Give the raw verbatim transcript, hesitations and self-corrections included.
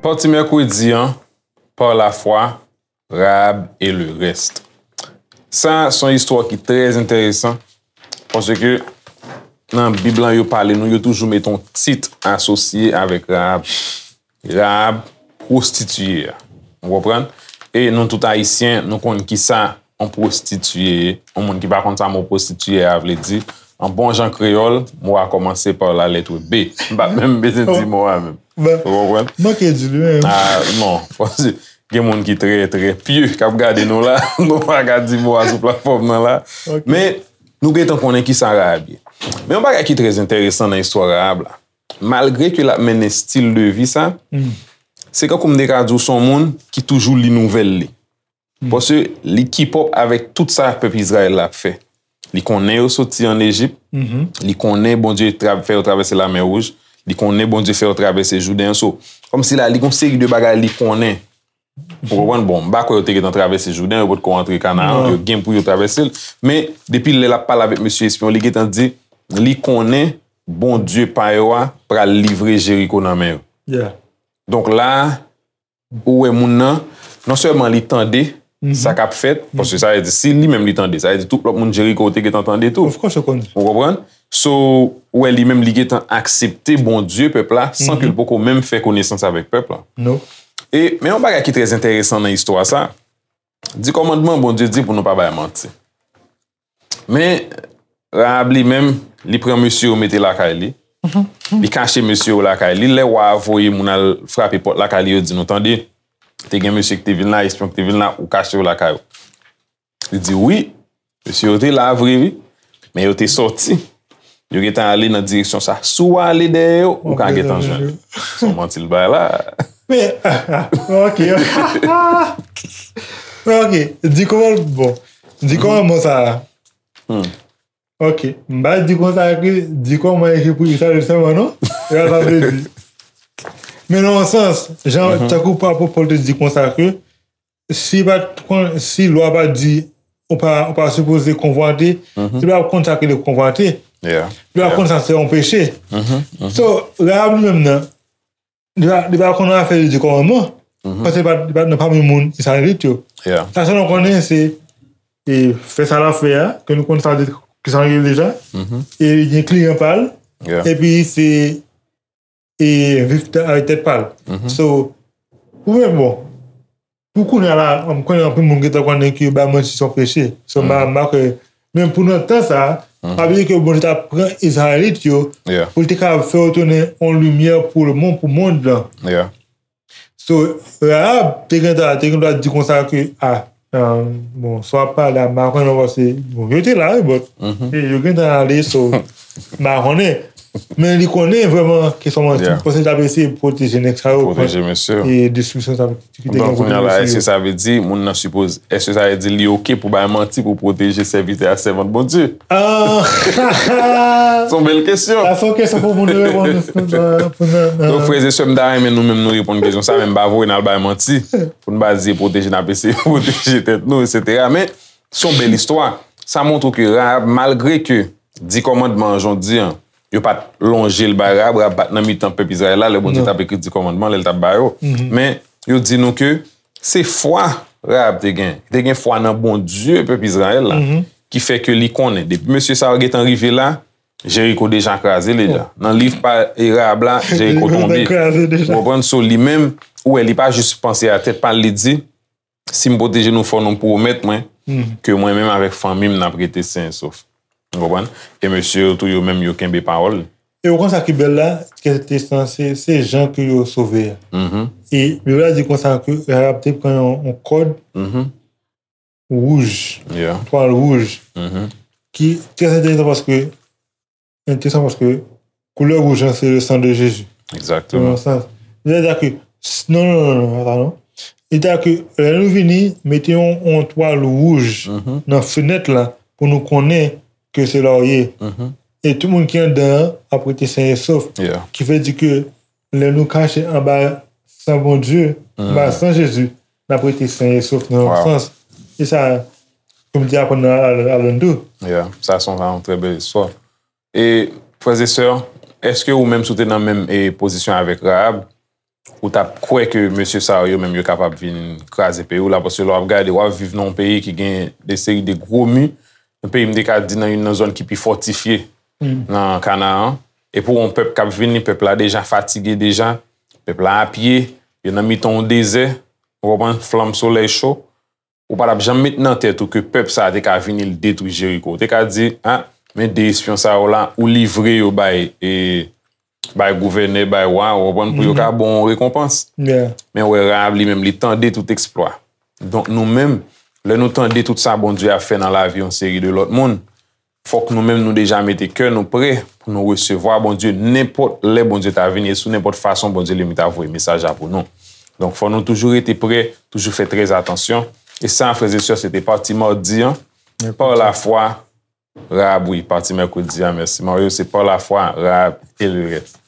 Pati mèkredi an, par la foi, Rahab et le reste. Sa, se yon istwa ki trè enteresan, paske nan Bib lan, yo pale nou, yo toujou met yon tit asosye avèk Rahab. Rahab, pwostitiye a. Ou konprann? E nou tout Ayisyen, nou konn kisa yon pwostitiye ye. Yon moun ki pa konn sa mo pwostitiye a vle di, an bon jan kreyòl, mo a kòmanse pa la lèt B. M pa menm bezwen di mo a menm. Ou konprann? Manke di li menm. Ah, non. Gen moun ki trè, trè pye k ap gade nou la. Nou pa ka di mo a sou platfòm nan la. Men, nou gentan konnen kisa Rahab ye. Men yon bagay ki trè enteresan nan istwa Rahab la, malgre ke l ap mennen stil de vi sa, se kankou m te ka di w se yon moun ki toujou li nouvèl li. Paske li keep up avèk tout sa pèp Izrayèl la ap fè. Li konnen yo soti ann Ejip. Li konnen Bondye tra- fè yo travèse Lamè Wouj. Li konnen Bondye fè yo travèse Jouden. So, kòmsi la, li gon seri de bagay li konnen. Ou konprann? Bon, m pa kwè yo te gentan travèse Jouden, yo potko antre Kanaan, yo gen pou yo travèse l. Men, depi lè l ap pale avèk mesye espyon, li gentan di, li konnen Bondye pa yo a pral livre Jeriko nan men yo. Donk la, ou wè moun nan, non sèlman li tande sa k ap fèt, paske sa vle di, si li menm li tande, sa vle di tout lòt moun Jeriko te gentan tande tou. Ou konprann? So, ou wè li menm li gentan aksepte Bondye pèp la, san ke l poko menm fè konesans avèk pèp la. E, men yon bagay ki trè enteresan nan istwa sa, di kòmandman Bondye di pou nou pa bay manti. Men, Rahab li menm, li pran mesye yo mete lakay li. Li kache mesye yo lakay li. Lè wa a voye moun al frape pòt lakay li, yo di nou, tande, te gen mesye ki te vin la, espyon ki te vin la, ou kache yo lakay ou. Li di, wi, mesye yo te la vre, wi, men yo te sòti. Yo gentan ale nan direksyon sa. Si w ale dèyè yo, ou ka gentan jwenn yo. Se yon manti l bay la. Men, ok. Ok, di kòman, bon, di kòman sa a. Ok, m pa di konsa ke di kòman ekri pou Izrayèl sèlman, non? Se pa sa m vle di. Men nan yon sans, jan, tankou pa Pòl te di konsa ke si pa t kon, si lwa pa di ou pa, ou pa sipoze konvwate, li pa konn sa ki rele konvwate. Li pa konn sa se yon peche. So, Rahab li menm nan, li pa, li pa konn afè de di kòmandman. Paske li pa, li pa nan pami moun Izrayelit yo. Sa sèl nou konnen se, e, fè sa l ap fè a, ke nou konn sa de, ki sa l rele deja. E li gen kliyan pa l. Epi se, e, viv tè- avèk tèt pa l. So, pou mwen, bon, pou kounye a la, m konnen anpil moun gentan konnen ke bay manti se yon peche. So, m pa, m pa kwè. Men pou nan tan sa a, pa bliye ke Bondye t ap pran Izrayelit yo pou l te kapab fè yo tounen yon limyè pou lemonn, pou mond lan. So, Rahab te gentan, te gentan di konsa ke, a, bon, sa w ap pale a, m pa konnen non, paske, bon, yo te la, wi, but, e, yo gentan ale, so, m pa konnen. Men li konnen vrèman kesyon manti, paske l t ap eseye pwoteje nèg sa yo kont, e, destriksyon sa ki te gen pou mesye yo. Donk, kounye a la, èske sa vle di moun nan sipoze, èske sa vle di li oke pou bay manti pou pwoteje sèvitè ak sèvant Bondye? Se yon bèl kesyon. Sa se yon kesyon pou moun reponn. Donk, frè e sè, m ta renmen nou menm nou reponn kesyon sa, men m pa voye n al bay manti. Pou n pa di e pwoteje, n ap eseye pwoteje tèt nou, etsetera. Men, se yon bèl istwa. Sa montre ke Rahab, malgre ke di kòmandman an, jan w di an, yo pa t lonje l bay Rahab, Rahab pa t nan mitan pèp Izrayèl la, lè Bondye t ap ekri di kòmandman, lè l t ap ba yo. Men, yo di nou ke se fwa Rahab te gen. Li te gen fwa nan Bondye pèp Izrayèl la, ki fè ke li konnen. Depi mesye sa yo gentan rive la, Jeriko deja kraze deja. Nan liv pa, e, Rahab la, Jeriko tonbe. Ou konprann? So, li menm, ou wè, li pa jis panse a tèt pa l, li di, si m pwoteje nou, fò nou pwomèt mwen ke mwen menm avèk fanmi m, n ap rete sen e sof. Ou konprann? E mesye yo tou, yo menm, yo kenbe pawòl. E ou konn sa ki bèl la, ke se, se, se jan ke yo sove a. E Bib la di konsa ke Rahab te pran yon, yon kòd wouj, twal wouj, ki trè enteresan paske, enteresan paske koulè wouj lan se le sang de Jésus. Nan yon sans. Sètadi ke, non, non, non, non, pa sa non. Sètadi ke lè nou vini, mete yon, yon twal wouj nan fenèt la pou nou konnen ke se la w ye. E tout moun ki anndan an ap rete sen e sof. Ki vle di ke lè nou kache anba san Bondye, anba san Jezi, n ap rete sen e sof nan yon sans. E sa, Kòm di aprann nan Al- Alan tou. Yeah, sa se yon trè bèl istwa. E, frè e sè, èske ou menm si w te nan menm e, pozisyon avèk Rahab, ou t ap kwè ke mesye sa yo menm yo kapab vin kraze peyi w la? Paske lè w ap gade, w ap viv nan yon peyi ki gen de seri de gwo mi, yon peyi m te ka di nan youn nan zòn ki pi fòtifye nan Kanaan. E pou yon pèp k ap vini, pèp la deja fatige deja, pèp la apye, yo nan mitan yon dezè, ou konprann, flanm solèy cho. Ou pa t ap janm met nan tèt ou ke pèp sa a te ka vini l detwi Jeriko. Ou te ka di, a, men de espyon sa yo la, ou livre yo bay e bay gouvènè, bay wa, ou konprann, pou yo ka ba w yon rekonpans. Yeah. Men wè Rahab li menm, li tande tout eksplwa. Donk nou menm, lè nou tande tout sa Bondye ap fè nan lavi yon seri de lòt moun, fòk nou menm nou deja mete kè nou prè pou nou resevwa Bondye nenpòt lè Bondye ta vini e sou nenpòt fason Bondye li menm ta voye mesaj la pou nou. Donk fò nou toujou rete prè, toujou fè trè atansyon. E sa, frè e sè, se te pati madi an. Par la foi, Rahab, wi, pati mèkredi a, mèsi Mario, se par la foi, Rahab e le reste.